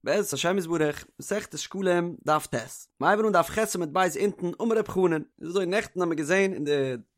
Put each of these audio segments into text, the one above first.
בעזרת השם יתברך, מסכת שקלים, דף ט'. מ'הייבן אן דף ח' עמוד ב' אונטן, אמר רב חנן. איז אזוי, נעכטן האבן מיר געזען אין די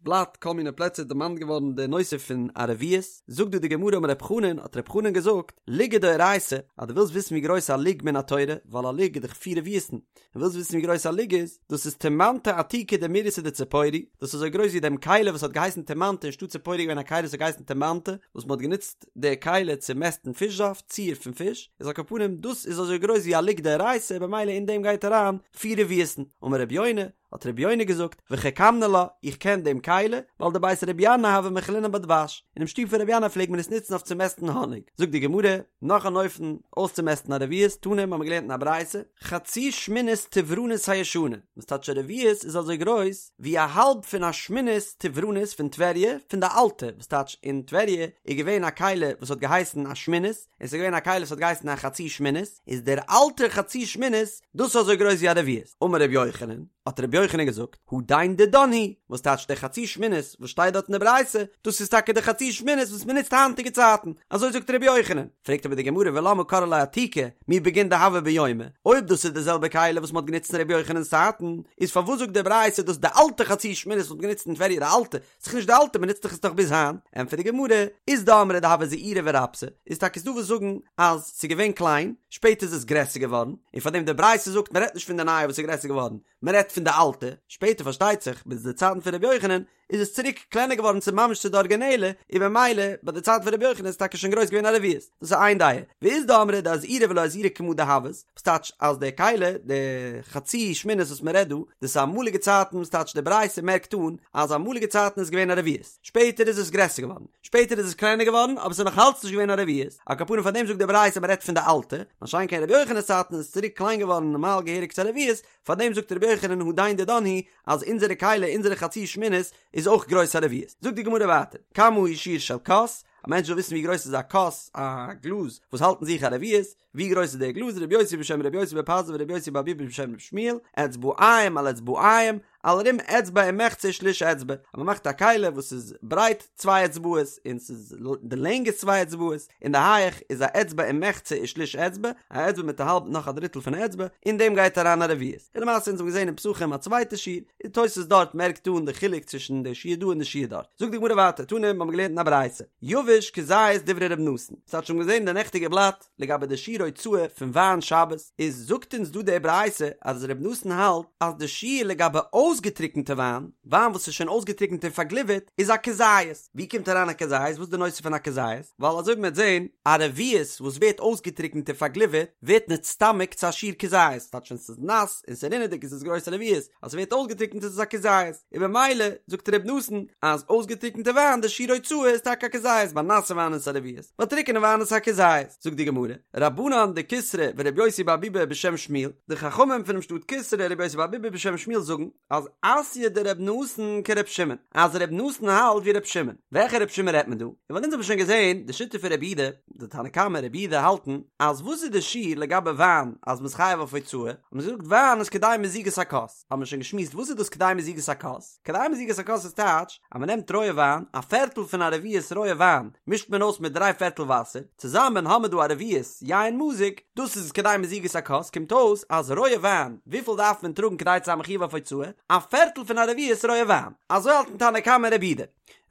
בלאט כל מיני פלעצער דערמאנט געווארן די נושא פון א רביעית, זאגט דא די גמרא אמר רב חנן, האט רב חנן געזאגט, לוגא דאורייתא, אז דו ווילסט וויסן ווי גרויס א לוג מן התורה, ווייל א לוג איז דאך פיר רביעית'ן, און ווילסט וויסן ווי גרויס א לוג איז, דאס איז תימנתא עתיקא דמורייסא דציפורי, דאס איז אזוי גרויס ווי דעם כלי וואס האט געהייסן תימנתא אין שטאט ציפורי איז געווען א כלי וואס האט געהייסן תימנתא, וואס מען האט גענוצט די כלי צו מעסטן פיש זאפט, ציר פון פיש, איז על כל פנים דאס איז אזוי גרויס ווי א לוג דאורייתא במילא אין דעם גייט אריין פיר רביעית'ן, אמר רבי יונה, האט רבי יונה געזאגט, וחכמנא לה, איך קען דעם כלי, ווייל דבית רבי ינאי הוה מכלינן בה דבש, אינעם שטוב פון רבי ינאי פלעג מען עס נוצן אויף צו מעסטן האניג, זאגט די גמרא, נאך אן אופן אויסצומעסטן א רביעית, תנא, האבן מיר געלערנט אין א ברייתא, חצי שמינית טברנית הישנה, וואס טייטש א רביעית איז אזוי גרויס ווי א האלב פון א שמינית טברנית פון טבריה, פון די אלטע, וואס טייטש אין טבריה איז געווען א כלי וואס האט געהייסן א שמינית, און ס'איז געווען א כלי וואס האט געהייסן א חצי שמינית, איז דער אלטער חצי שמינית דאס איז אזוי גרויס ווי א רביעית. אמר רבי יוחנן, האט רבי יוחנן געזאגט, הדין דידן הוא, וואס טייטש דער חצי שמינית וואס שטייט דארט אין די ברייתא, דאס איז טאקע דער חצי שמינית וואס מען נוצט היינטיגע צייטן, אזוי זאגט רבי יוחנן. פרעגט אבער די גמרא ולמה קרי לה עתיקא, מי בגין דהוה ביומיה, אויב דאס איז די זעלבע כלי וואס מען האט גענוצט אין רבי יוחנן'ס צייטן, איז פארוואס זאגט די ברייתא דאס די אלטע חצי שמינית וואס מען האט גענוצט אין טבריה די אלטע, ס'איז נישט די אלטע מ'נוצט דאך עס נאך ביז היינט, ענטפערט די גמרא, אית דאמרי דהוה זעירא ורבתא, איז טאקע ס'דא וואס זאגן אז ס'איז געווען קליין, שפעטער איז עס גרעסער געווארן, און פארדעם די ברייתא זאגט מ'רעדט נישט פון די נייע וואס איז גרעסער געווארן, מ'רעדט פון די אלטע, שפעטער פארשטייט זיך ביז די צייטן פון רבי יוחנן איז עס צוריק קלענער געווארן צו ממש צו די ארגינעלע, און במילא ביי די צייט פון רבי יוחנן איז טאקע שוין גרויס געווען א רביעית, דאס איז איין דעה, ואית דאמרי דאזעירא ולא אזעירא כמה דהוות, וואס טייטש אז די כלי, די חצי שמינית וואס מען רעדט דא, דאס איז אמאליגע צייטן וואס טייטש די ברייתא מערקט אן אז אמאליגע צייטן איז געווען א רביעית, שפעטער איז עס גרעסער געווארן, שפעטער איז עס קלענער געווארן אבער עס איז נאך אלץ נישט געווען א רביעית, על כל פנים פאר דעם זאגט די ברייתא מען רעדט פון די אלטע, מה שאין כן רבי יוחנן'ס צייטן איז עס צוריק קליין געווארן נארמאל געהעריג צו א רביעית, פאר דעם זאגט רבי יוחנן הדין דידן הוא אז אונזערע כלי אונזערע חצי שמינית איז אויך גרויס א רביעית. זאגט די גמרא ווייטער, כמה הוא שיעור של כוס, א מענטש וויל וויסן ווי גרויס איז א כוס, א גלאז, וואס האלט אין זיך א רביעית, ווי גרויס איז דער גלאז, רבי יוסי בשם רבי יוסי בר פזי ורבי יוסי בר ביבי בשם רבי שמואל, אצבעיים על אצבעיים, על רום אצבע ומחצה ושליש אצבע, אז מען מאכט א כלי וואס איז ברייט צוויי אצבעות און ס'איז די לענג איז צוויי אצבעות, און די הייעך איז א אצבע ומחצה ושליש אצבע, א אצבע מיט א האלב נאך א דריטל פון א אצבע, אין דעם גייט אריין א רביעית. און למעשה אונז האבן געזען אין פסחים א צווייטע שיעור, און תוס' דארט מערקט אן די חילוק צווישן די שיעור דא און די שיעור דארט. זאגט די גמרא ווייטער, תנא, מיר האבן געלערנט אין א ברייתא, יבש כזית דברי ר' נתן, ס'האט שוין געזען אין די נעכטיגע בלאט לגבי די שיעור הוצאה פון וויין שבת, איז זאגט אונז דא די ברייתא אז ר' נתן האלט אז די שיעור לגבי אויסגעטריקענטע וויין, וויין וואס איז שוין אויסגעטריקענט און פארגליווערט, איז א כזית. ווי קומט אריין א כזית? וואס איז די נושא פון א כזית? ווייל אזוי ווי מ'וועט זען, א רביעית וואס ווערט אויסגעטריקנט און פארגליווערט, ווערט נצטמק צו א שיעור כזית, ס'טייטש ווען ס'איז נאס און ס'איז רינעדיג איז עס גרויס א רביעית, אז ס'ווערט אויסגעטריקנט איז עס א כזית, און במילא זאגט ר' נתן אז אויסגעטריקנטע וויין די שיעור הוצאה איז טאקע א כזית, ביי נאסע וויין איז עס א רביעית, ביי טריקענע וויין איז עס א כזית. זאגט די גמרא, רבנן דקיסרי ור' יוסי בר ביבי בשם שמואל, די חכמים פונעם שטאט קיסרי און ר' יוסי בר ביבי בשם שמואל זאגן, אז אתיא דר' נתן כר' שמעון, אז ר' נתן האלט ווי ר' שמעון, וועלכע ר' שמעון רעדט מען דא? און ווייל אונז האבן שוין געזען די שיטה פון רבי יהודה, די תנא קמא רבי יהודה האלטן אז וואס איז די שיעור לגבי וויין אז מ'איז חייב אויף הוצאה, האט מען געזאגט וויין איז כדי מזיגת הכוס, האבן מיר שוין געשמועסט וואס איז דאס כדי מזיגת הכוס, כדי מזיגת הכוס איז טייטש אז מ'נעמט רויע וויין, א פערטל פון א רביעית רויע וויין מישט מען אויס מיט דריי פערטל וואסער, צוזאמען האמער דא א רביעית יין מזוג, דאס איז כדי מזיגת הכוס, קומט אויס אז רויע וויין, וויפיל דארף מען טראגן כדי צו זיין מחויב אויף הוצאה? א פערטל פון א רביעית רויע וויין. אזוי האלטן תנא קמא און רבי יהודה.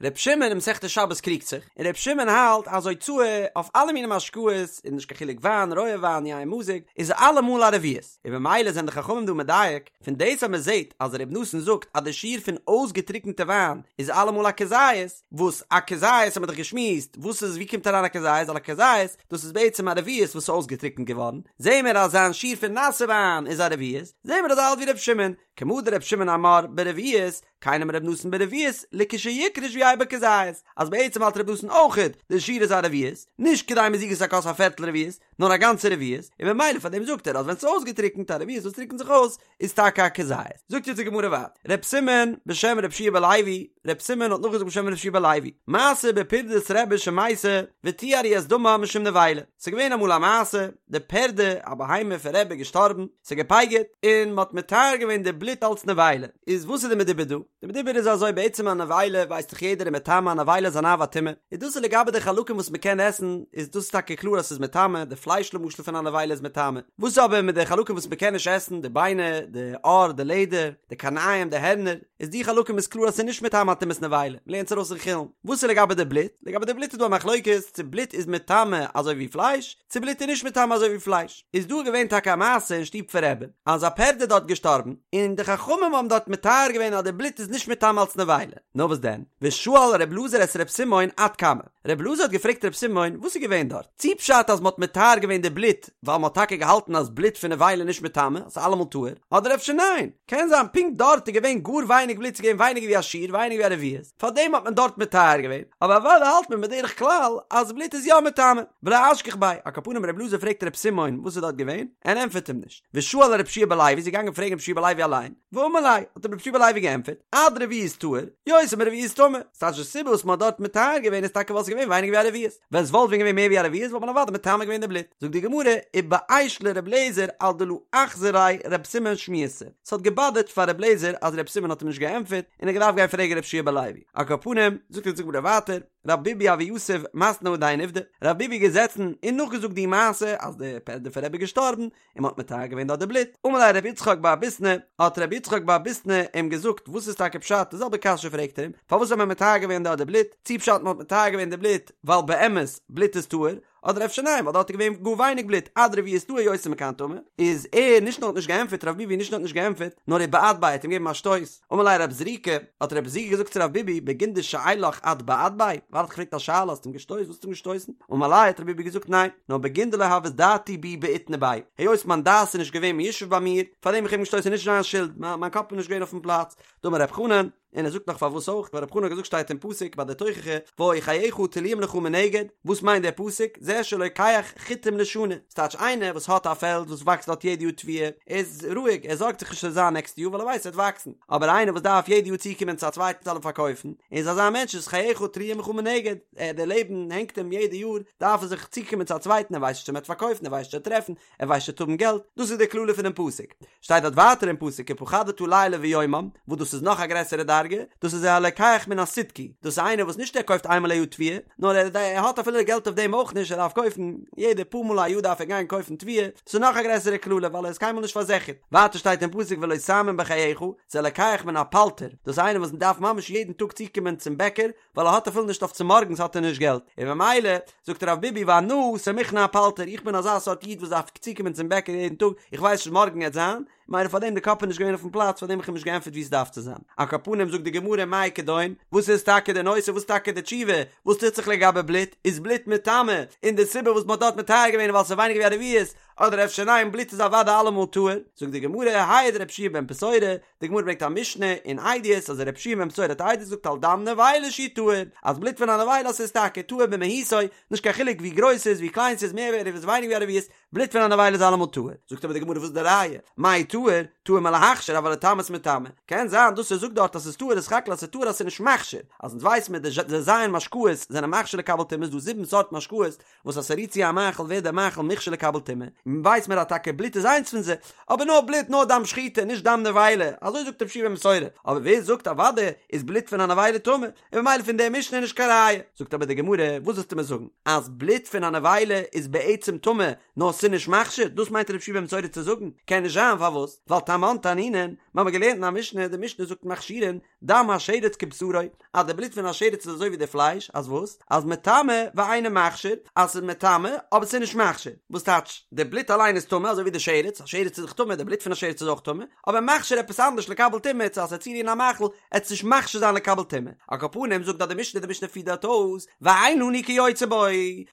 ר' שמעון אין מסכת שבת קריגט זיך, און ר' שמעון האלט אז הוצאה אויף אלע מיני משקאות, איז נישט קיין חילוק וויין, רויע וויין, יין מזוג, איז אלעמאל א רביעית. און במילא זענען די חכמים דא מדייק, פון דאס אז מען זעט אז ר' נתן זאגט אז די שיעור פון אויסגעטריקענטע וויין איז אלעמאל א כזית, וואס א כזית האט מען דאך געשמועסט, וואס איז ווי קומט אריין א כזית, ווייל א כזית דאס איז בעצם א רביעית וואס איז אויסגעטריקענט געווארן, זעהן מיר אז זיין שיעור פון נאסע וויין איז א רביעית, זעהן מיר אז ער האלט ווי ר' שמעון, כמה דר' שמעון אמר ברביעית, כן אמר ר' נתן ברביעית, לכשיקרש ויהא בו כזית, אז בעצם האלט ר' נתן אויכעט די שיעור איז א רביעית, נישט כדי מזיגת הכוס א פערטל רביעית, נאר א גאנצע רביעית, און במילא פאר דעם זאגט ער אז ווען ס'איז אויסגעטריקנט א רביעית וואס טריקנט זיך אויס איז טאקע א כזית. זאגט יעצט די גמרא ווייטער, ר' סימון בשם ר' יהושע בן לוי, ר' סימון האט נאכגעזאגט בשם ר' יהושע בן לוי, מעשה בפרדת רבי שמתה וטיהרו את דמה משום נבילה, ס'איז געווען אמאל א מעשה, די פרדה, א בהמה פון רבי איז געשטארבן, ס'איז געפייגערט, און מ'האט מטהר געווען די בלוט אלס נבילה, איז וואס איז די מדובר דא? די מדובר איז אזוי בעצם א נבילה ווייסט דאך יעדער איז מטמא א נבילה איז אן אב הטומאה, איז דאס איז לגבי די חלקים וואס מ'קען עסן איז דאס טאקע קלאר אז ס'איז מטמא, די פלייש למשל פון א נבילה איז מטמא, וואס איז אבער מיט די חלקים וואס מ'קען נישט עסן, די ביינער, די עור, די לעדער, די קרניים, די הערנער, איז די חלקים איז קלאר אז ס'איז נישט מטמא טומאת נבילה, מ'לערנט עס ארויס אין חולין. וואס איז לגבי די בלוט? לגבי די בלוט איז דא א מחלוקת צו בלוט איז מטמא אזוי ווי פלייש, צו בלוט איז נישט מטמא אזוי ווי פלייש. איז דא געווען טאקע א מעשה אין שטוב פון רבי, אז א פערד איז דארט געשטארבן, און די חכמים האבן דארט מטהר געווען אז די בלוט איז נישט מטמא אלס נבילה. נאר וואס דען? ושאל ר' אלעזר את ר' סימון עד כמה. ר' אלעזר האט געפרעגט ר' סימון וואס איז געווען דארט? צי פשט אז מ'האט מטהר געווען די בלוט ווייל מ'האט טאקע געהאלטן אז בלוט פון נבילה איז נישט מטמא, ס'איז אלעמאל טהור, אדער אפשר ניין? קען זיין פונקט דארט איז געווען גאר ווייניג בלוט, ס'איז געווען ווייניגער ווי א שיעור, ווייניגער ווי א רביעית, פארדעם האט מען דארט מטהר געווען, אבער אוודאי האלט מען בדרך כלל אז בלוט איז יא מטמא. ולא אשגח ביה, על כל פנים ר' אלעזר פרעגט ר' סימון וואס איז דארט געווען, ער ענטפערט אים נישט. ושאל ר' יהושע בן לוי איז געגאנגען פרעגן ר' יהושע בן לוי אליין, ואמר ליה, האט אים ר' יהושע בן לוי געענטפערט, עד רביעית טהור, יותר מרביעית טמא, ס'טייטש די סיבה וואס מ'האט דארט מטהר געווען איז טאקע ווייל ס'איז געווען ווייניגער ווי א רביעית, ווען ס'וואלט ווען געווען מער ווי א רביעית וואלט מען אוודאי מטמא געווען די בלוט. זאגט די גמרא, ובאיש לר' אליעזר על דלא אחזר ליה ר' סימון שמועתא, ס'האט געבאדערט פאר ר' אליעזר אז ר' סימון האט אים נישט געענטפערט, און ער האט געדארפט גיין פרעגן ר' יהושע בן לוי. על כל פנים, זאגט אונז די גמרא ווייטער, רב ביבי הוה יתיב מתני הדין עובדא, רב ביבי איז געזעצן און נאכגעזאגט די מעשה אז די פערדע פון רבי איז געשטארבן, און מ'האט מטהר געווען דארט די בלוט, אמר ליה רבי יצחק בר ביסנא, האט רבי יצחק בר ביסנא אים געזאגט וואס איז טאקע פשט, די זעלבע קשיא פרעגט ער אים, פארוואס האט מען מטהר געווען דארט די בלוט, צי פשט מ'האט מטהר געווען די בלוט ווייל באמת בלוט איז טהור, אדער אפשר ניין ווייל דארט איז געווען גאר ווייניג בלוט עד רביעית טהור יותר מכאן טמא, איז ער נישט נאר האט נישט געענטפערט רב ביבי נישט נאר האט נישט געענטפערט נאר ובעט ביה האט אים געגעבן א שטויס, אמר ליה רב זריקא, האט רב זריקא געזאגט צו רב ביבי בגין דשאילך את בעט ביה, ווייל ער האט געפרעגט א שאלה האסטו אים געשטויסן וואס האסטו אים געשטויסן, אמר ליה האט רב ביבי געזאגט ניין, נאר בגין דלא הות דעתי בי בעיתנא ביה, היות מיין דעת איז נישט געווען מיושב ביי מיר, פארדעם איך האב אים געשטויסן איז נישט זיין שולד, מיין קאפ איז נישט געווען אויפן פלאץ, דאמר רב חנן, און ער זאגט נאך פארוואס אויך, ווייל רב חנן האט געזאגט שטייט אין פסוק ביי די תוכחה, והיו חייך תלואים לך מנגד, וואס מיינט דער פסוק, זה שלוקח חיטים לשנה, ס'טייטש איינער וואס האט א פעלד וואס וואקסט דארט יעדע יאר תבואה, איז רואיג, ער זארגט זיך נישט ס'וועט זיין נעקסטע יאר ווייל ער ווייסט ס'וועט וואקסן, אבער איינער וואס דארף יעדע יאר צוקומען צו א צווייטן זאל אים פארקויפן, איז אזא מענטש איז חייך תלואים לך מנגד, ער דער לעבן הענגט אים יעדע יאר, דארף ער זיך צוקומען צו א צווייטן, ער ווייסט נישט צו מ'וועט פארקויפן, ער ווייסט נישט צו ער וועט טרעפן, ער ווייסט נישט צו ער וועט האבן געלט, דאס איז די קללה פונעם פסוק. שטייט דארט ווייטער אין פסוק ופחדת לילה ויומם, וואס דאס איז נאך א גרעסערע דרגה, דאס איז הלוקח מן הסידקי, דאס איז איינער וואס נישט ער קויפט איינמאל א יאר תבואה, נאר ער ער האט אפילו געלט אויף דעם אויך נישט, ער דארף קויפן, יעדע פאר מאל א יאר דארף ער גיין קויפן תבואה, דאס איז נאך א גרעסערע קללה ווייל ער איז קיינמאל נישט פארזיכערט. ווייטער שטייט אין פסוק ולא תאמין בחייך, זה הלוקח מן הפלטר, דאס איז איינער וואס דארף ממש יעדן טאג צוקומען צום בעקער, ווייל ער האט אפילו נישט אויף צומארגנס האט ער נישט געלט, און ממילא זאגט רב ביבי ואנא סמיכנא אפלטר, איך בין אזא סארט איד וואס דארף צוקומען צום בעקער יעדן טאג, איך ווייס נישט מארגן עט זיין, ממילא פארדעם די קאפ איז נישט געווען אויפן פלאץ פארדעם איך האב נישט געענטפערט ווי עס דארף צו זיין. על כל פנים זאגט די גמרא מאי כדון, וואס איז טאקע די נושא וואס איז טאקע די תשובה, וואס טוט זיך לגבי בלוט, איז בלוט מטמא, און די סיבה וואס מען האט דארט מטהר געווען איז ווייל ס'איז ווייניגער ווי א רביעית, אדער אפשר ניין בלוט איז אוודאי אלעמאל טהור, זאגט די גמרא העיד רבי יהושע בן פתורא, די גמרא ברענגט א משנה אין עדיות אז רבי יהושע בן פתורא האט עדות געזאגט על דם נבילה שהוא טהור, אז בלוט פון א נבילה ס'איז טאקע טהור במהותו, נישט קיין חילוק ווי גרויס ס'איז ווי קליין ס'איז מער ווי א רביעית ווייניגער ווי א רביעית, בלוט פון א נבילה איז אלעמאל טהור. זאגט אבער די גמרא וואס איז די ראיה? מאי טהור? טהור מלהכשיר אבל לטמאות מטמא. קען זיין דאס ער זאגט דארט אז ס'איז טהור איז סך הכל אז ס'איז טהור אז ס'איז נישט מכשיר, אז אונז ווייסן מיר די ז' משקאות זענען מכשיר לקבל טומאה איז דא זיבן סארט משקאות וואס אז ס'רירט צו א מאכל ווערט דער מאכל מוכשר לקבל טומאה, און ווייס מיר אז טאקע בלוט איז איינס פון זיי, אבער נאר בלוט נאר דם שחיטה נישט דם נבילה, אזוי זאגט רבי יהושע בן פתורא, אבער ווער זאגט אוודאי איז בלוט פון א נבילה טמא, און ממילא פון דער משנה איז נישט קיין ראיה. זאגט אבער די גמרא, וואס ווילסטו מיר זאגן, אז בלוט פון א נבילה איז בעצם טמא נאר ס'איז נישט מכשיר, דאס מיינט רבי יהושע בן פתורא צו זאגן? קען נישט זיין, פארוואס? ווייל תמן תנינן, מיר האבן געלערנט אין א משנה, די משנה זאגט מכשירין, דם השרץ כבשרו, אז די בלוט פון א שרץ איז אזוי ווי די פלייש, אז וואס? אז מטמא ואינו מכשיר, אז ס'איז מטמא, אבער ס'איז נישט מכשיר. וואס טייטש? די בלוט אליין איז טמא, אזוי ווי די שרץ, א שרץ איז דאך טמא, די בלוט פון א שרץ איז אויך טמא, אבער מכשיר עפעס אנדערש לקבל טומאה, צו אז ס'וועט צורירן א מאכל, עט עס נישט מכשיר זיין לקבל טומאה. על כל פנים זאגט דאך די משנה, די משנה פירט דארט אויס, ואין לנו כיוצא בו,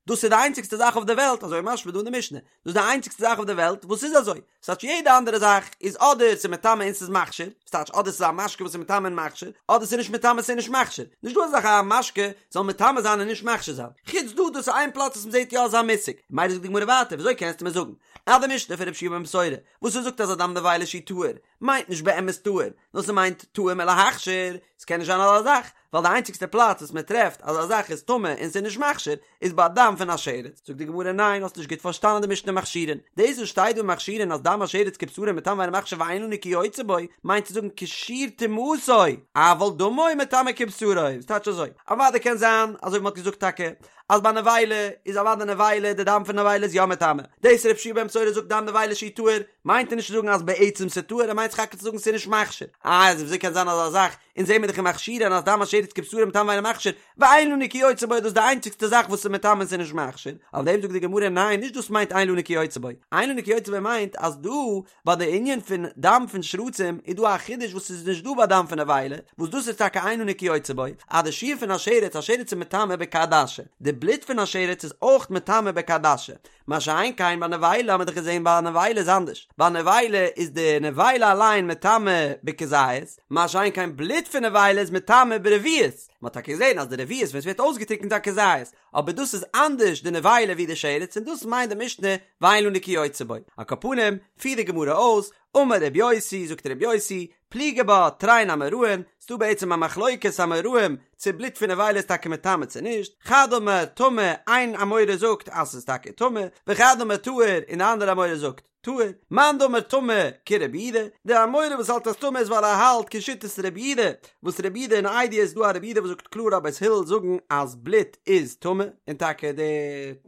דאס איז די איינציגסטע זאך אויף די וועלט, אזוי משמע דא אין די משנה, דאס איז די איינציגסטע זאך אויף די וועלט וואס איז אזוי, ס'טייטש יעדע אנדערע זאך איז אדער ס'איז מטמא און ס'איז מכשיר, ס'טייטש אדער ס'איז א משקה וואס איז מטמא און מכשיר, אדער ס'איז נישט מטמא ס'איז נישט מכשיר, נישט דא אזא זאך א משקה זאל מטמא זיין און נישט מכשיר זיין, חוץ דא דאס איז איין פלאץ וואס מ'זעט יא אזא מושג, ממילא זאגט די גמרא ווייטער וויאזוי קענסטו מיר זאגן אז די משנה פון רבי יהושע בן פתורא וואס ער זאגט אז א דם נבילה שהוא טהור מיינט נישט באמת טהור, נאר ס'מיינט טהור מלהכשיר, ס'קען נישט זיין אזא זאך. ווייל די איינציגסטע פלאץ וואס מען טרעפט אז א זאך איז טמא און ס'איז נישט מכשיר איז ביי דם פון א שרץ, זאגט די גמרא ניין האסט נישט גוט פארשטאנען די משנה מכשירין, דאס וואס שטייט דא מכשירין אז דם השרץ כבשרו מטמא ואינו מכשיר ואין לנו כיוצא בו, מיינט צו זאגן כשיעור טומאתו, אבל דמו מטמא כבשרו, וואס טייטש אזוי? אוודאי קען זיין אזוי ווי מ'האט געזאגט טאקע אז ביי נבילה איז אוודאי נבילה די דם פון נבילה איז יא מטמא, דאס ר' יהושע בן פתורא זאגט דם נבילה שהוא טהור מיינט ער נישט צו זאגן אז בעצם ס'איז טהור ער מיינט סך הכל צו זאגן ס'איז נישט מכשיר, איי אז וויאזוי קען זיין אזא זאך אונז זעמיר דאך אין מכשירין אז דם השרץ כבשרו מטמא ואינו מכשיר, ואין לנו כיוצא בו איז דאס די איינציגסטע זאך וואס איז מטמא און ס'איז נישט מכשיר, אויף דעם זאגט די גמרא ניין נישט דאס מיינט אין לנו כיוצא בו, אין לנו כיוצא בו מיינט אז דא ביי די ענין פון דם פון שרצים איז דא א חידוש וואס איז נישט דא ביי דם פון נבילה, וואס דאס איז טאקע אין לנו כיוצא בו, אז די שיעור פון א שרץ, א שרץ איז מטמא בכעדשה, די בלוט פון א שרץ איז אויך מטמא בכעדשה, מה שאין כן ביי נבילה האט מען דאך געזען ביי נבילה איז אנדערש, ביי נבילה איז די נבילה אליין מטמא בכזית, מה שאין כן בלוט פון נבילה איז מטמא ברביעית, מען האט טאקע געזען אז די רביעית ווען עס ווערט אויסגעטריקנט איז א כזית, אבער דאס איז אנדערש די נבילה ווי די שרץ און דאס מיינט די משנה ואין לנו כיוצא בו. על כל פנים, פירט די גמרא אויס, אמר רבי יוסי, זאגט רבי יוסי, פליגי בה תרין אמוראים, ס'דא בעצם א מחלוקת אמוראים צו בלוט פון נבילה איז טאקע מטמא צו נישט, חד אמר טמא, איין אמורא זאגט אז ס'איז טאקע טמא, וחד אמר טהור, און די אנדערע אמורא זאגט טהור, מאן דאמר טמא כרבי יהודה, די אמורא וואס האלט אז טמא איז ווייל ער האלט כשיטת רבי יהודה, וואס רבי יהודה אין עדיות איז דא א רבי יהודה וואס זאגט קלאר אז בית הלל זאגן אז בלוט איז טמא, און טאקע די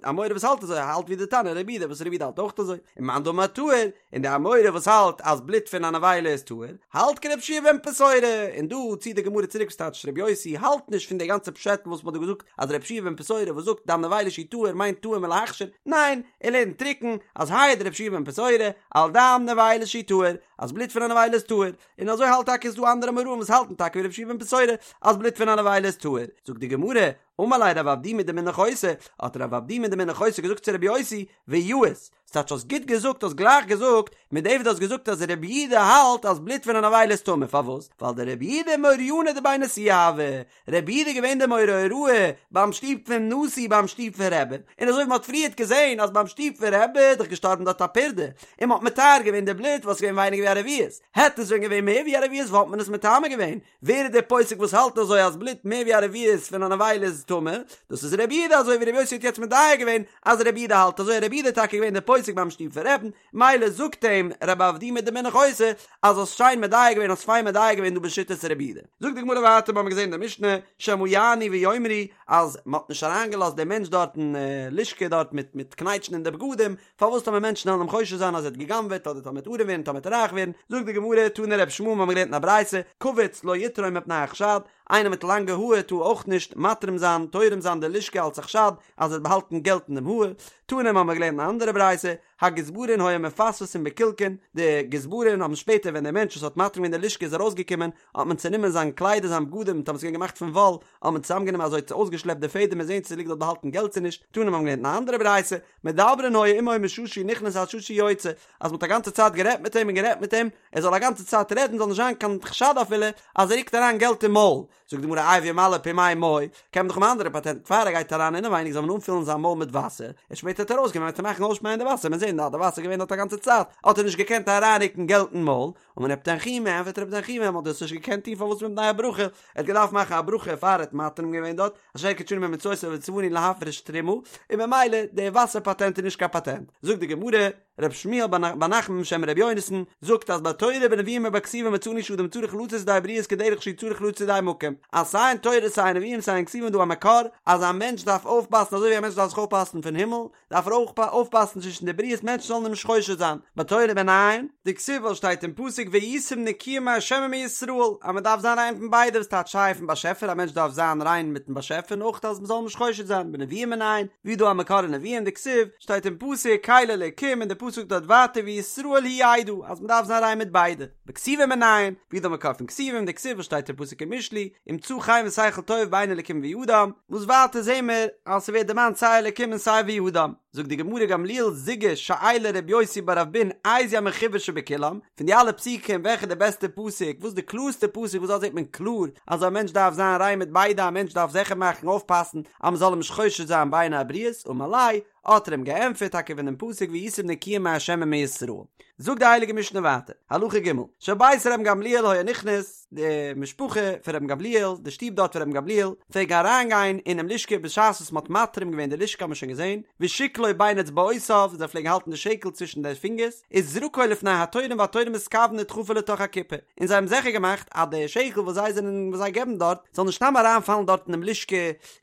אמורא וואס האלט אזוי האלט ווי די תנא רבי יהודה וואס רבי יהודה האלט אויך אזוי, און מאן דאמר טהור, און די אמורא וואס האלט אז בלוט פון א נבילה איז טהור, האלט כרבי יהושע בן פתורא, און דא ציט די גמרא צוריק וואס טייטש רבי יוסי האלט נישט פון די גאנצע פשעטל וואס מ'האט דא געזאגט אז רבי יהושע בן פתורא וואס זאגט דם נבילה שהוא טהור מיינט טהור מלהכשיר, ניין, ער לערנט טרוקן אז העיד רבי יהושע בן פתורא על דם נבילה שהוא טהור, אז בלוט פון א נבילה איז טהור, און אזוי האלט טאקע איז דא אנדערע אמוראים וואס האלטן טאקע ווי רבי יהושע בן פתורא אז בלוט פון א נבילה איז טהור, זאגט די גמרא, אמר ליה רב אבדימי דמן נחותא, האט רב אבדימי דמן נחותא געזאגט צו רבי יוסי, ויאות, ס'טייטש האסט גוט געזאגט האסט גלייך געזאגט, מיט דעם וואס דו האסט געזאגט אז רבי יהודה האלט אז בלוט פון א נבילה איז טמא, פארוואס? ווייל דרבי יהודה מוריינא דבי נשיאה הוה, רבי יהודה איז געווען דער מורה הוראה ביים שטוב פון נשיא ביים שטוב פון רבי, און אזוי ווי מ'האט פריערט געזען אז ביים שטוב פון רבי איז דאך געשטארבן דארט א פרדה, און מ'האט מטהר געווען די בלוט וואס איז געווען ווייניגער ווי א רביעית, העט עס ווען געווען מער ווי א רביעית וואלט מען עס מטמא געווען, ווער איז דער פוסק וואס האלט אזוי אז בלוט מער ווי א רביעית פון א נבילה איז טמא? דאס איז רבי יהודה אזוי ווי רבי יוסי האט יעצט מדייק געווען אז רבי יהודה האלט אזוי רבי יהודה איז טאקע געווען דער פוסק ביים שטוב פון רבי'ן מילא זאגט אים רב אבדימי דמן נחותא אז האסט שיין מדייק געווען האסט פיין מדייק געווען דא בשיטת רבי יהודה. זאגט די גמרא ווייטער מיר האבן געזען אין די משנה שמא יענו ויאמרו אז מען האט נישט אריינגעלאזט דעם מענטש דארט אין לשכה דארט מיט מיט קנייטשן אין די בגדים פארוואס טאמער מענטשן וועלן אים חושד זיין אז ער האט גע'גנב'עט אדער טאמער ער וועט ארעם ווערן טאמער ער וועט רייך ווערן, זאגט די גמרא, תנא רבי ישמעאל מיר האבן געלערנט אין א ברייתא, קווץ לא יתרום מפני החשד, איינער מיט לאנגע האר טאר אויך נישט מתרים זיין, תורם זיין די לשכה אלס א חשד אז ער האט באהאלטן געלט אין דעם האר, תנא מיר האבן געלערנט אין א אנדערע ברייתא, הגזברין היו מפספסין בקילקין, די גזברין האבן שפעטער ווען דער מענטש וואס האט מתרים געווען די לשכה איז ארויסגעקומען, האט מען צענומען זיין קליידער זיין בגדים טאמער ס'איז געווען געמאכט פון וואל, האט מען צוזאמגענומען אזוי צו אויסגעשלעפט די פעדעם און זען צו ס'ליגט דארט באהאלטן געלט צו נישט, תנא מיר האבן געלערנט אין א אנדערע ברייתא, מדברין היו עמו משעה שהוא נכנס עד שעה שהוא יוצא, אז מ'האט א גאנצע צייט גערעדט מיט אים און גערעדט מיט אים, ער זאל א גאנצע צייט רעדן זאל נישט זיין קיין חשד אפילו אז ער רוקט אריין געלט אין מויל, זאגט די גמרא איי וימלא פומיה מוי, קען מען דאך האבן אן אנדערע פאטענט, פאר ער גייט אריין אינעווייניג זאל מען אנפילן זיין מויל מיט וואסער, און שפעטער וועט ער ארויסגיין וועט ער מאכן אויסשפייען די וואסער, מ'עט זען אז די וואסער איז געווען דארט א גאנצע צייט, האט ער נישט געקענט אריינרוקן געלט אין מויל, אמר רב תנחומא, ענפערט רב תנחומא, מ'האט דאס נישט געקענט טון פארוואס מפני הברכה, ער האט געדארפט מאכן א ברכה פאר ער האט מתרים געווען דארט, אשר קדשנו במצותיו וצונו להפריש תרומה, און ממילא די וואסער פאטענט איז נישט קיין פאטענט. זאגט די גמרא, ר' שמואל בר נחמן בשם ר' יונתן, זאגט אז בתורה בנביאים ובכתובים מצינו שאדם צריך לצאת ידי הבריות כדרך שהוא צריך לצאת ידי המקום, אז סיי אין תורה סיי אין נביאים סיי אין כתובים איז דא א מקור אז א מענטש דארף אויפפאסן אזוי ווי א מענטש דארף זיך אויפפאסן פון הימל, דארף ער אויך אויפפאסן צווישן די בריות מענטשן זאלן אים נישט חושד זיין, בתורה מנין? דכתיב ווייל שטייט אין פסוק והייתם נקיים מה' ומישראל אז מען דארף זיין ריין פון ביידע וואס טייטש סיי פון באשעפער א מענטש דארף זיין ריין מיטן באשעפער און אויך אז מען זאל אים נישט חושד זיין, בנביאים מנין? ווי איז דא א מקור אין נביאים דכתיב שטייט אין פסוק קל אלקים און די פסוק זאגט דארט ווייטער וישראל הוא ידע אז מען דארף זיין ריין מיט ביידע, בכתובים מנין? ווי איז דא מקור פון כתובים דכתיב וואס שטייט אין פסוק אין משלי ומצא חן ושכל טוב בעיני אלקים ואדם, וואס ווייטער זעהן מיר אז ס'ווערט דערמאנט סיי אלקים און סיי ואדם, זאגט די גמרא גמליאל זוגא שאיליה ר' יוסי בר אבין איזהו המחובר שבכולם, פון די אלע פסוקים וועלכע איז די בעסטע פסוק, וואס איז די קלארסטע פסוק וואס דארט זעהט מען קלאר אז א מענטש דארף זיין ריין מיט ביידע, א מענטש דארף זיכער מאכן אויפפאסן אז מ'זאל אים נישט חושד זיין בעיני הבריות, אמר ליה. האט ער אים געענטפערט טאקע פון דעם פסוק והייתם נקיים מה' ומישראל. זאגט די הייליגע משנה ווייטער, הלכה ג', של בית רבן גמליאל היה נכנס, די משפחה פון רבן גמליאל, די שטוב דארט פון רבן גמליאל, פלעגן אריינגיין אינעם לשכה בשעת וואס מען האט מתרים געווען די לשכה האט מען שוין געזען, ושקלו בין אצבעותיו, זיי פלעגן האלטן די שקל צווישן די פינגערס, וזרקו לפני התורם והתורם מתכוון לדחפו לתוך הקופה, און זיי האבן זיכער געמאכט אז די שקל וואס זיי זענען וואס זיי געבן דארט זאל נישט סתם אריינפאלן דארט אינעם לשכה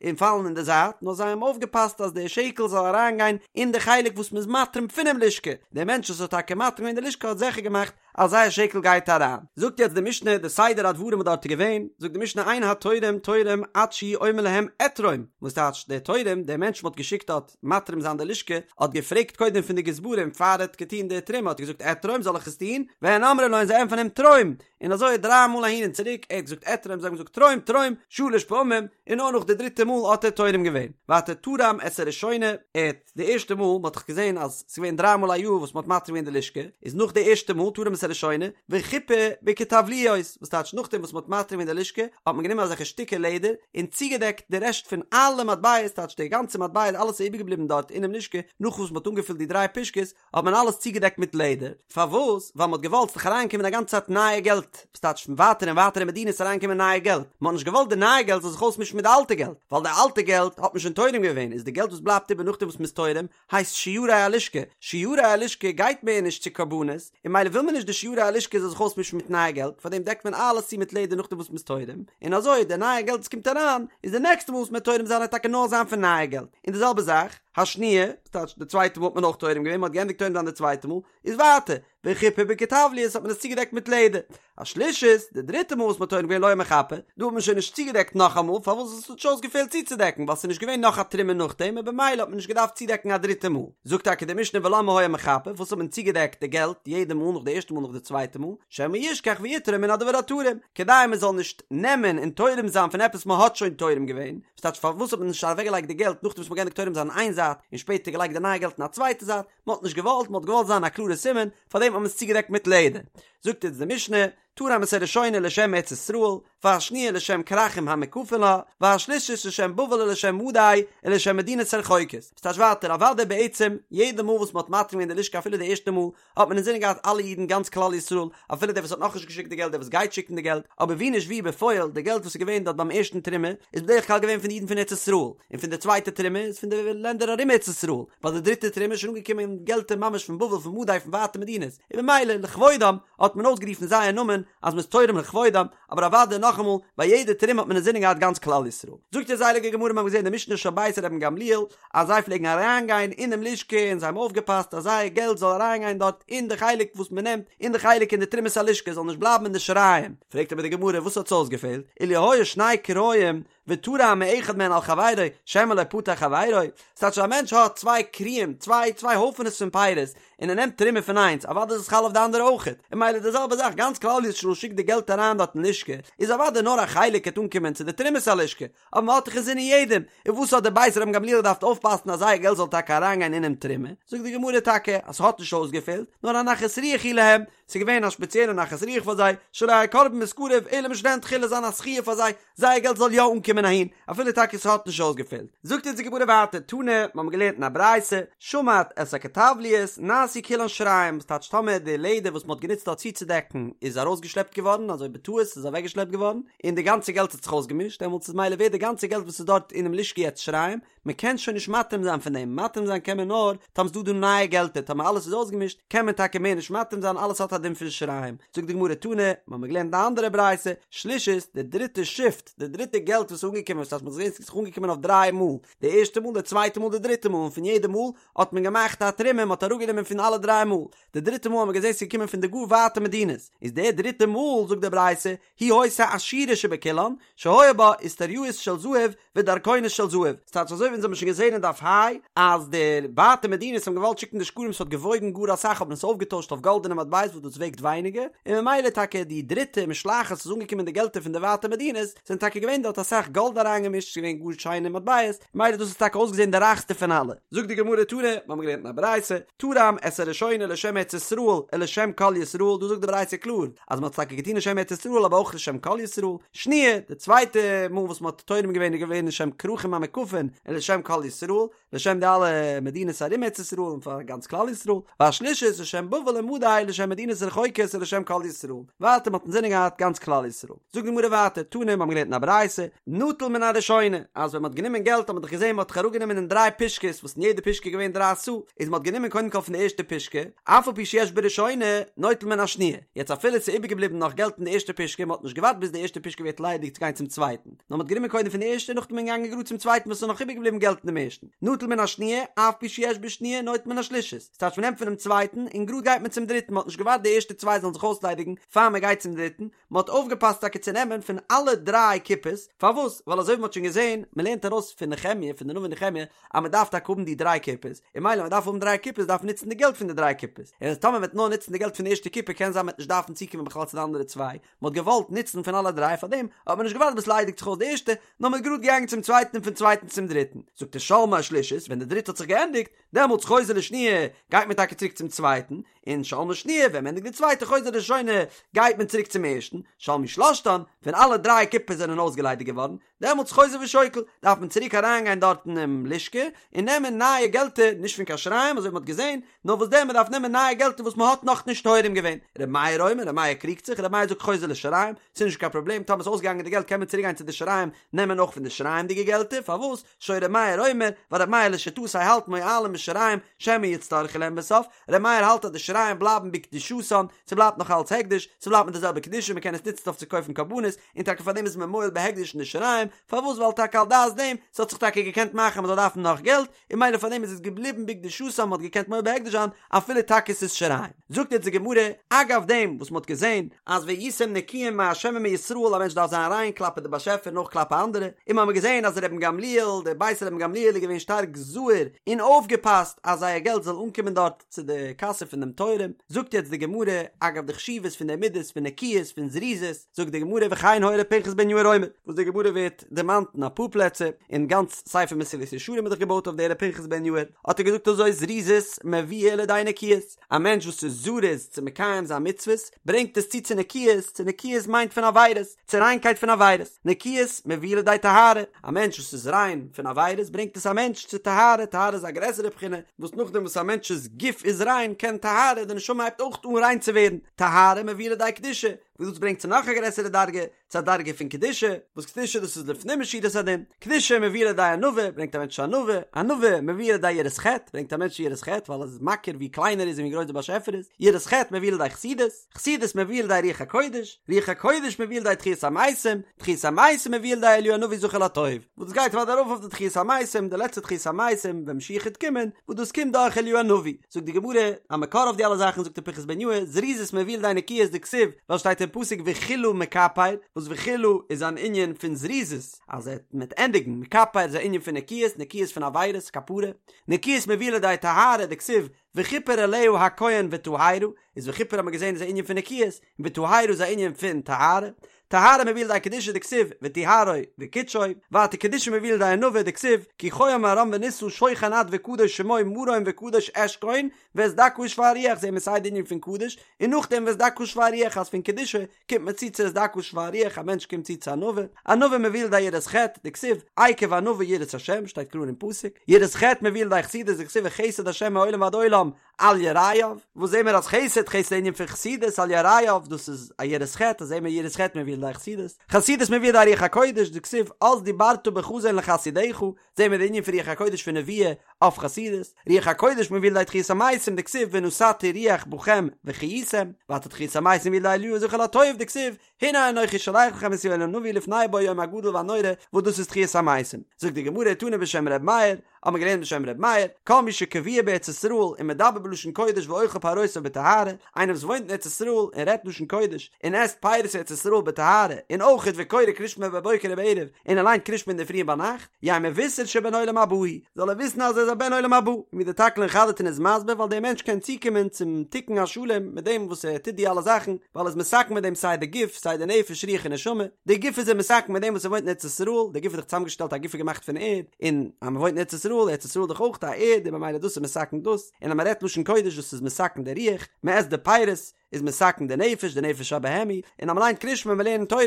און פאלן אין די זייט, נאר זיי האבן אויפגעפאסט אז די שקל זאל אריינגיין אין די חלק וואס מ'איז מתרים פונעם לשכה, דער מענטש וואס האט טאקע מתרים געווען די לשכה האט זיכער געמאכט אז זייער שקל גייט אריין. זאגט יעצט די משנה די סדר הדברים וואס דארט איז געווען, זאגט די משנה אין התורם תורם עד שהוא אומר להם אתרום, וואס טייטש דער תורם, דער מענטש מ'האט געשיקט דארט מתרים זיין די לשכה, האט געפרעגט קודם פון די גזברים פאר ער האט געטון די תרומה האט ער געזאגט אתרום זאל איך עס טון, והן אומרים לו און זיי ענטפערן אים תרום, און אזוי דריי מאל אהין און צוריק, ער האט געזאגט אתרום זיי האבן געזאגט תרום תרום, שלש פעמים, און נאר נאך די דריטע מאל האט ער תורם געווען. ווייטער תרם את הראשונה, ער האט די ערשטע מאל, מען האט דאך געזען אז ס'איז געווען דריי מאל א יאר וואס מען האט מתרים געווען די לשכה, איז נאך די ערשטע מאל תרם את הראשונה, וחיפה בכתבליות, וואס טייטש נאכדעם וואס מען האט מתרים געווען די לשכה, האט מען גענומען אזעלכע שטיקער לעדער, און צוגעדעקט די רעשט פון אלע מטבעות, טייטש די גאנצע מטבעות אלעס איז איבערגעבליבן דארט אינעם לשכה, נאך וואס מען האט אנגעפילט די דריי פושקעס, האט מען אלעס צוגעדעקט מיט לעדער, פארוואס? ווייל מען האט געוואלט ס'זאל אריינקומען א גאנצע צייט נייע געלט, וואס טייטש פון ווייטער און ווייטערע מדינות אריינקומען נייע געלט, מען האט נישט געוואלט די נייע געלט זאל זיך אויסמישן מיט די אלטע געלט, ווייל די אלטע געלט האט מען שוין תורם געווען, איז די געלט וואס בלייבט איבער נאכדעם וואס מען איז תורם, הייסט שיירי הלשכה, שיירי הלשכה גייט מער נישט צו קרבנות, און ממילא וויל מען נישט די שיירי הלשכה זאל זיך אויסמישן מיט נייע געלט, פארדעם דעקט מען אלעס צו מיט לעדער נאכדעם וואס מען איז תורם, און אזוי די נייע געלט וואס קומט אריין, איז די נעקסטע מאל וואס מען וועט תורם זיין וועט טאקע נאר זיין פון נייע געלט, און די זעלבע זאך, השניה, ס'טייטש די צווייטע מאל האט מען אויך תורם געווען, מ'האט געענדיגט תורם זיין די צווייטע מאל, איז ווייטער, וחיפה בכתבליות האט מען עס צוגעדעקט מיט לעדער. השלישית, די דריטע מאל וואס מ'האט תורם געווען לא היה מחפה, דא האט מען שוין נישט צוגעדעקט נאכאמאל, פארוואס עס האט נישט אויסגעפעלט צוצודעקן, ווייל ס'איז נישט געווען נאך א תרומה נאכדעם און במילא האט מען נישט געדארפט צודעקן א דריטע מאל. זאגט טאקע די משנה ולמה היה מחפה, וואס האט מען צוגעדעקט די געלט יעדע מאל נאך די ערשטע מאל נאך די צווייטע מאל, שמא ישכח ויתרום מן הדבר התרום, כדי מ'זאל נישט נעמען און תורם זיין פון עפעס מ'האט שוין תורם געווען, ס'טייטש פארוואס האט מען נישט אוועקגעלייגט די געלט נאכדעם וואס מ'האט געענדיגט תורם זיין אין איין זייט און שפעטער געלייגט די נייע געלט אין א צווייטע זייט, מ'האט נישט געוואלט, מ'האט געוואלט זיין א קלארע סימן, פארדעם האט מען עס צוגעדעקט מיט לעדער. זאגט אונז די משנה, תרם את הראשונה לשם ארץ ישראל, והשניה לשם כרכים המוקפין לה, והשלישית לשם בבל ולשם מדי ולשם מדינות הרחוקות. ס'טייטש ווייטער, אוודאי בעצם, יעדע מאל וואס מ'האט מתרים געווען די לשכה אפילו די ערשטע מאל, האט מען אינזינען געהאט אלע אידן גאנץ כלל ישראל, אפילו דער וואס האט נאכנישט געשיקט די געלט דער וואס גייט שיקן די געלט, אבער ווי נישט ווי בפועל די געלט וואס איז געווען דארט ביים ערשטן תרומה איז בדרך כלל געווען פון די אידן פון ארץ ישראל, און פון די צווייטע תרומה איז פון די לענדער ארום ארץ ישראל, ביי די דריטע תרומה איז שוין אנגעקומען געלטער ממש פון בבל פון מדי פון ווייטע מדינות, און במילא לכבודם האט מען אויסגערופן זייער נאמען אז מ'איז תורם לכבודם, אבער אוודאי נאכאמאל ביי יעדע תרומה האט מען אינזינען געהאט גאנץ כלל ישראל. זאגט אונז די הייליגע גמרא מיר האבן געזען די משנה של בית רבן גמליאל אז זיי פלעגן אריינגיין אינעם לשכה און זיי האבן אויפגעפאסט אז זייער געלט זאל אריינגיין דארט אין די חלק וואס מען נעמט אין די חלק אין די תרומת הלשכה זאל נישט בלייבן אין די שיריים, פרעגט אבער די גמרא וואס האט עס אויסגעפעלט, אילו היו שני כריים ותרם מאחד מהן על חברו שמא לא פטר חברו, ס'טייטש אז א מענטש האט צוויי כריים, צוויי צוויי הויפענעס פון פירות, און ער נעמט תרומה פון איינס, אוודאי איז עס חל אויף די אנדערע אויכעט, און ממילא די זעלבע זאך, גאנץ כלל ישראל שיקט די געלט אריין דארט אין לשכה, איז אוודאי נאר א חלק העט אנקומען צו די תרומת הלשכה, אבער מען האט דאך אינזינען יעדעם, און וואס האט דער בית רבן גמליאל געדארפט אויפפאסן אז זייער געלט זאל טאקע אריינגיין אינעם תרומה? זאגט די גמרא טאקע אז ס'האט נישט אויסגעפעלט, נאר א נחת רוח היא להם, ס'איז געווען א שפעציעלע נחת רוח פאר זיי, שלא יהא קרבן מתקרב אלא משלהן תחילה זיין א זכיה פאר זיי, זייער געלט זאל יא אנקומען אהין, אפילו טאקע ס'האט נישט אויסגעפעלט. זאגט אונז די גמרא ווייטער, תנא, מ'האמיר געלערנט אין א ברייתא, שמט את הכתבליות, נעשו כולן שיריים, וואס טייטש טאמער די לעדער וואס מ'האט גענוצט דארט צוצודעקן איז ארויסגעשלעפט געווארן, אזוי בטעות איז אוועקגעשלעפט געווארן, און די גאנצע געלט האט זיך אויסגעמישט, דעמאלטס איז מילא ווערט די גאנצע געלט וואס איז דארט אינעם לשכה יעצט שיריים, מען קען שוין נישט מתרים זיין פון דעם, מתרים זיין קען מען נאר טאמער ס'דא דא נייע געלטער, טאמער אלעס איז אויסגעמישט קען מען טאקע מער נישט מתרים זיין, אלעס האט א דין פון שיריים. זאגט די גמרא תנא, מ'האמיר געלערנט די אנדערע ברייתא, שלישית, די דריטע שיפט, די דריטע געלט וואס איז אנגעקומען, וואס הייסט מ'האט געזען ס'איז אנגעקומען אויף דריי מאל, די ערשטע מאל, די צווייטע מאל, די דריטע מאל, און פון יעדע מאל האט מען געמאכט א תרומה, מ'האט אראפגענומען פון אלע דריי מאל, די דריטע מאל האט מען געזען ס'איז געקומען פון די גאר ווייטע מדינות, איז די דריטע מאל, זאגט די ברייתא, היא היתה עשירה שבכולן, שהיה בה איסטריאות של זהב ודרכונות של זהב, ס'טייטש אזוי ווי אונז האבן שוין געזען אין דף ה', אז די ווייטע מדינות האבן געוואלט שיקן די שקלים ס'האט געוואויגן גאר אסאך האט מען עס אויפגעטוישט אויף גאלדענע מטבעות וואס דאס וועגט ווייניגער, און ממילא טאקע די דריטע משלחת וואס איז אנגעקומען די געלטער פון די ווייטע מדינות, זענען טאקע געווען דארט אסאך. גאלד אריינגעמישט, ס'איז געווען גאר שיינע מטבעות, ממילא דאס האט טאקע אויסגעזען די רייכסטע פון אלע. זאגט די גמרא תנא, מיר האבן געלערנט אין א ברייתא, תרם את הראשונה לשם ארץ ישראל ולשם כל ישראל, דא זאגט די ברייתא קלאר אז מ'האט עס טאקע געטון לשם ארץ ישראל אבער אויך לשם כל ישראל, שניה, די צווייטע מאל וואס מ'האט תורם געווען איז געווען לשם כרכים המוקפין ולשם כל ישראל, לשם די אלע מדינות ארום ארץ ישראל און פאר גאנץ כלל ישראל, והשלישית לשם בבל ומדי לשם מדינות רחוקות ולשם כל ישראל, ווייטער מ'האט אינזינען געהאט גאנץ כלל ישראל. זאגט די גמרא ווייטער, תנא מיר האבן געלערנט אין א ברייתא, נטל מן הראשונה, אז ווען מ'האט גענומען געלט האט מען דאך געזען מ'האט דאך אראפגענומען אין דריי פושקעס וואס אין יעדע פושקע איז געווען דריי סאה, איז מ'האט גענומען קודם כל פון די ערשטע פושקע, אף על פי שיש בראשונה, נוטל מן השניה, יעצט אפילו ס'איז איבערגעבליבן נאך געלט אין די ערשטע פושקע, מ'האט נישט געווארט ביז די ערשטע פושקע ווערט ליידיג צו גיין צום צווייטן. נאר מ'האט גענומען קודם פון די ערשטע נאכדעם איז מען געגאנגען גראד צום צווייטן וואס איז נאך איבערגעבליבן געלט אין דעם ערשטן, נטל מן השניה, אף פי שיש בשניה נוטל מן השלישית, ס'טייטש מ'נעמט פונעם צווייטן און גראד גייט מען צום דריטן, מ'האט נישט געווארט די ערשטע צוויי זאלן זיך אויסליידיגן פאר מ'גייט צום דריטן, מ'האט אויפגעפאסט טאקע צו נעמען פון אלע דריי קופות, פארוואס? ווייל אזוי ווי מ'האט שוין געזען, מ'לערנט ארויס פון נחמיה, פון די נביא נחמיה, אז מ'דארף טאקע האבן די דריי קופות, און ממילא מ'דארף האבן דריי קופות דארף מען נוצן די געלט פון די דריי קופות, און אז טאמער מ'וועט נאר נוצן די געלט פון די ערשטע קופה קען זיין מ'וועט נישט דארפן צוקומען בכלל צו די אנדערע צוויי, מען האט געוואלט נוצן פון אלע דריי פאר דעם האט מען נישט געווארט ביז ס'ליידיגט זיך אויס די ערשטע, נאר מען איז גראד געגאנגען צום צווייטן און פון צווייטן צום דריטן. זאגט ער שלמה השלישית, ווען די דריטע האט זיך געענדיגט, דעמאלטס חוזר לשניה, גייט מען טאקע צוריק צום צווייטן, און שלמה שניה, ווען מען ענדיגט די צווייטע חוזר לראשונה, גייט מען צוריק צום ערשטן, שלמו שלשתן, ווען אלע דריי קופות זענען אויסגעליידיגט געווארן, דעמאלטס חוזר ושוקל, דארף מען צוריק אריינגיין דארט אינעם לשכה און נעמען נייע געלטער, נישט פון קיין שיריים אזוי ווי מען האט געזען, נאר וואס דען מען דארף נעמען נייע געלטער וואס מען האט נאכנישט תורם געווען. ר' מאיר אומר, ר' מאיר קריגט זיך, ר' מאיר זאגט חוזר לשיריים, ס'איז נישט קיין פראבלעם, טאמער ס'איז אויסגעגאנגען די געלט קען מען צוריק גיין צו די שיריים נעמען אויך פון די שיריים'דיגע געלטער, פארוואס? שהיה ר' מאיר אומר, ווייל ר' מאיר לשיטתו האלט מועלים בשיריים שמא יצטרכו להם בסוף, ר' מאיר האלט אז די שיריים בלייבן בקדושתן, ס'בלייבט נאך אלץ הקדש, ס'בלייבט מיט די זעלבע קדושה, מ'קען עס נוצן אויף צו קויפן קרבנות, און טאקע פאר דעם איז מען מועל בהקדש אין די שיריים, פארוואס ווייל טאקע על דעת דעם, ס'האט זיך טאקע געקענט מאכן אז מ'זאל דארפן נאך געלט, און ממילא פאר דעם איז עס געבליבן בקדושתם מ'האט געקענט מועל בהקדש זיין אפילו טאקע ס'איז שיריים. זאגט יעצט די גמרא, אגב דעם וואס מ'האט געזען אז והייתם נקיים מה' ומישראל א מענטש דארף זיין ריין כלפי די באשעפער און אויך כלפי אנדערע, און מ'האמיר געזען אז רבן גמליאל, דער בית רבן גמליאל איז געווען שטארק זהיר און אויפגעפאסט אז זייער געלט זאל אנקומען דארט צו די קאסע פון דעם תורם, זאגט יעצט די גמרא, אגב די חשיבות פון די מידות פון נקיות פון זריזות, זאגט די גמרא וכן היה ר' פנחס בן יאיר אומר, וואס די גמרא ווערט דערמאנט אין אפאר פלעצער, און גאנץ ספר מסילת ישרים איז דאך געבויט אויף די ר' פנחס בן יאיר, האט ער געזאגט אזוי זריזות מביאה לידי נקיות, א מענטש וואס איז זריז צו מקיים זיין מצוות, ברענגט עס צו צו נקיות, צו נקיות מיינט פון עבירות, צו ריינקייט פון עבירות, נקיות מביאה לידי טהרה, א מענטש וואס איז ריין פון עבירות ברענגט עס א מענטש צו טהרה, טהרה איז א גרעסערע בחינה, וואס נאכדעם וואס א מענטש'ס גוף איז ריין קען טהרה, די נשמה הייבט אויך אן ריין צו ווערן, טהרה מביאה לידי קדושה, וואס דאס ברענגט צו נאך א גרעסערע דרגה, צו א דרגה פון קדושה, וואס קדושה דאס איז לפנים משורת הדין, קדושה מביאה לידי ענווה, ברענגט א מענטש צו ענווה, ענווה מביאה לידי יראת חטא, ברענגט א מענטש צו יראת חטא, ווייל ער איז מכיר ווי קליין ער איז און ווי גרויס דער באשעפער איז, יראת חטא מביאה לידי חסידות, חסידות מביאה לידי רוח הקודש, רוח הקודש מביאה לידי תחיית המתים, תחיית המתים מביאה לידי אליהו הנביא זכור לטוב, וואס דאס גייט ווייטער ארויף אויף די תחיית המתים, די לעצטע תחיית המתים ווען משיח וועט קומען, וואס דאס קומט דורך אליהו הנביא. זאגט די גמרא, א מקור אויף די אלע זאכן זאגט ר' פנחס בן יאיר, זריזות מביאה לידי נקיות דכתיב, ווייל שטייט אין פסוק וכלה מכפר, וואס וכלה איז אן ענין פון זריזות, אז ער וועט ענדיגן, מכפר איז א ענין פון נקיות, נקיות פון עבירות, כפרה, נקיות מביאה לידי טהרה דכתיב, וכפר עליה הכהן וטהרה, איז וכפר האט מען געזען איז א ענין פון נקיות, און וטהרה איז א ענין פון טהרה, טהרה מביאה לידי קדושה דכתיב וטהרו וקדשו, ווייטער קדושה מביאה לידי ענווה דכתיב כי כה אמר רם ונשא שוכן עד וקדוש שמו מרום וקדוש אשכון ואת דכא ושפל רוח זעהן מיר סיי די ענין פון קדוש און נאכדעם ואת דכא ושפל רוח אז פון קדושה קומט מען צו צו את דכא ושפל רוח א מענטש קומט צו צו ענווה, ענווה מביאה לידי יראת חטא דכתיב עקב ענווה יראת השם שטייט קלאר אין פסוק, יראת חטא מביאה לידי חסידות דכתיב וחסד השם מעולם ועד עולם על יראיו, וואס זעהן מיר אז חסד, חסד איז ענין פון חסידות, על יראיו, דאס איז א יראת חטא, זעהן מיר יראת חטא מביאה לידי חסידות, חסידות מביאה לידי רוח הקודש, דכתיב אז דברת בחזון לחסידיך, זעהן מיר די ענין פון רוח הקודש פון נבואה אויף חסידות, רוח הקודש מביאה לידי תחיית המתים, דכתיב ונתתי רוח בכם וחייתם, ווייטער תחיית המתים מביאה לידי אליהו זכור לטוב, דכתיב הנה אנכי שולח לכם את יואל הנביא לפני בוא היום הגדול והנורא, וואס דאס איז תחיית המתים. זאגט די גמרא תנא בשם ר' מאיר, האט מען געלערנט בשם ר' מאיר, כל מי שקבוע בארץ ישראל ומדבר בלשון קודש ואוכל פירותיו בטהרה, איינער וואס וואוינט אין ארץ ישראל און רעדט לשון קודש און עסט פירות ארץ ישראל בטהרה, און אויכעט וקורא קריאת שמע בבוקר ובערב, און ער ליינט קריאת שמע אינדערפרי און ביינאכט, יהא מבושר שבן עולם הבא הוא, זאל ער וויסן אז ער איז א בן עולם הבא, און ווי דער תקלין חדתין איז מסביר ווייל דער מענטש קען צוקומען צום תיקון השלם מיט דעם וואס ער טוט די אלע זאכן, ווייל ער איז מתקן מיט דעם סיי די גוף סיי די נפש רוח און נשמה, די גוף איז ער מתקן מיט דעם וואס ער וואוינט אין ארץ ישראל, די גוף איז דאך צוזאמגעשטעלט א גוף איז געמאכט פון ערד, און אז מען וואוינט אין ארץ ישראל, ארץ ישראל איז דאך אויך א ערד און ממילא דאס איז מתקן דאס, און אז מען רעדט לשון קודש דאס איז מתקן די רוח, מען עסט די פירות, איז מתקן די נפש, די נפש הבהמי, און אז מען ליינט קריאת שמע און מען לערנט תורה,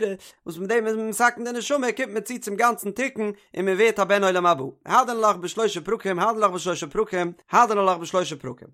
וואס מיט דעם איז מען מתקן די נשמה, קומט מען צו צום גאנצן תיקון, און מען ווערט א בן עולם הבא. הדרן עלך בשלושה פרקים, הדרן עלך בשלושה פרקים, הדרן עלך בשלושה פרקים.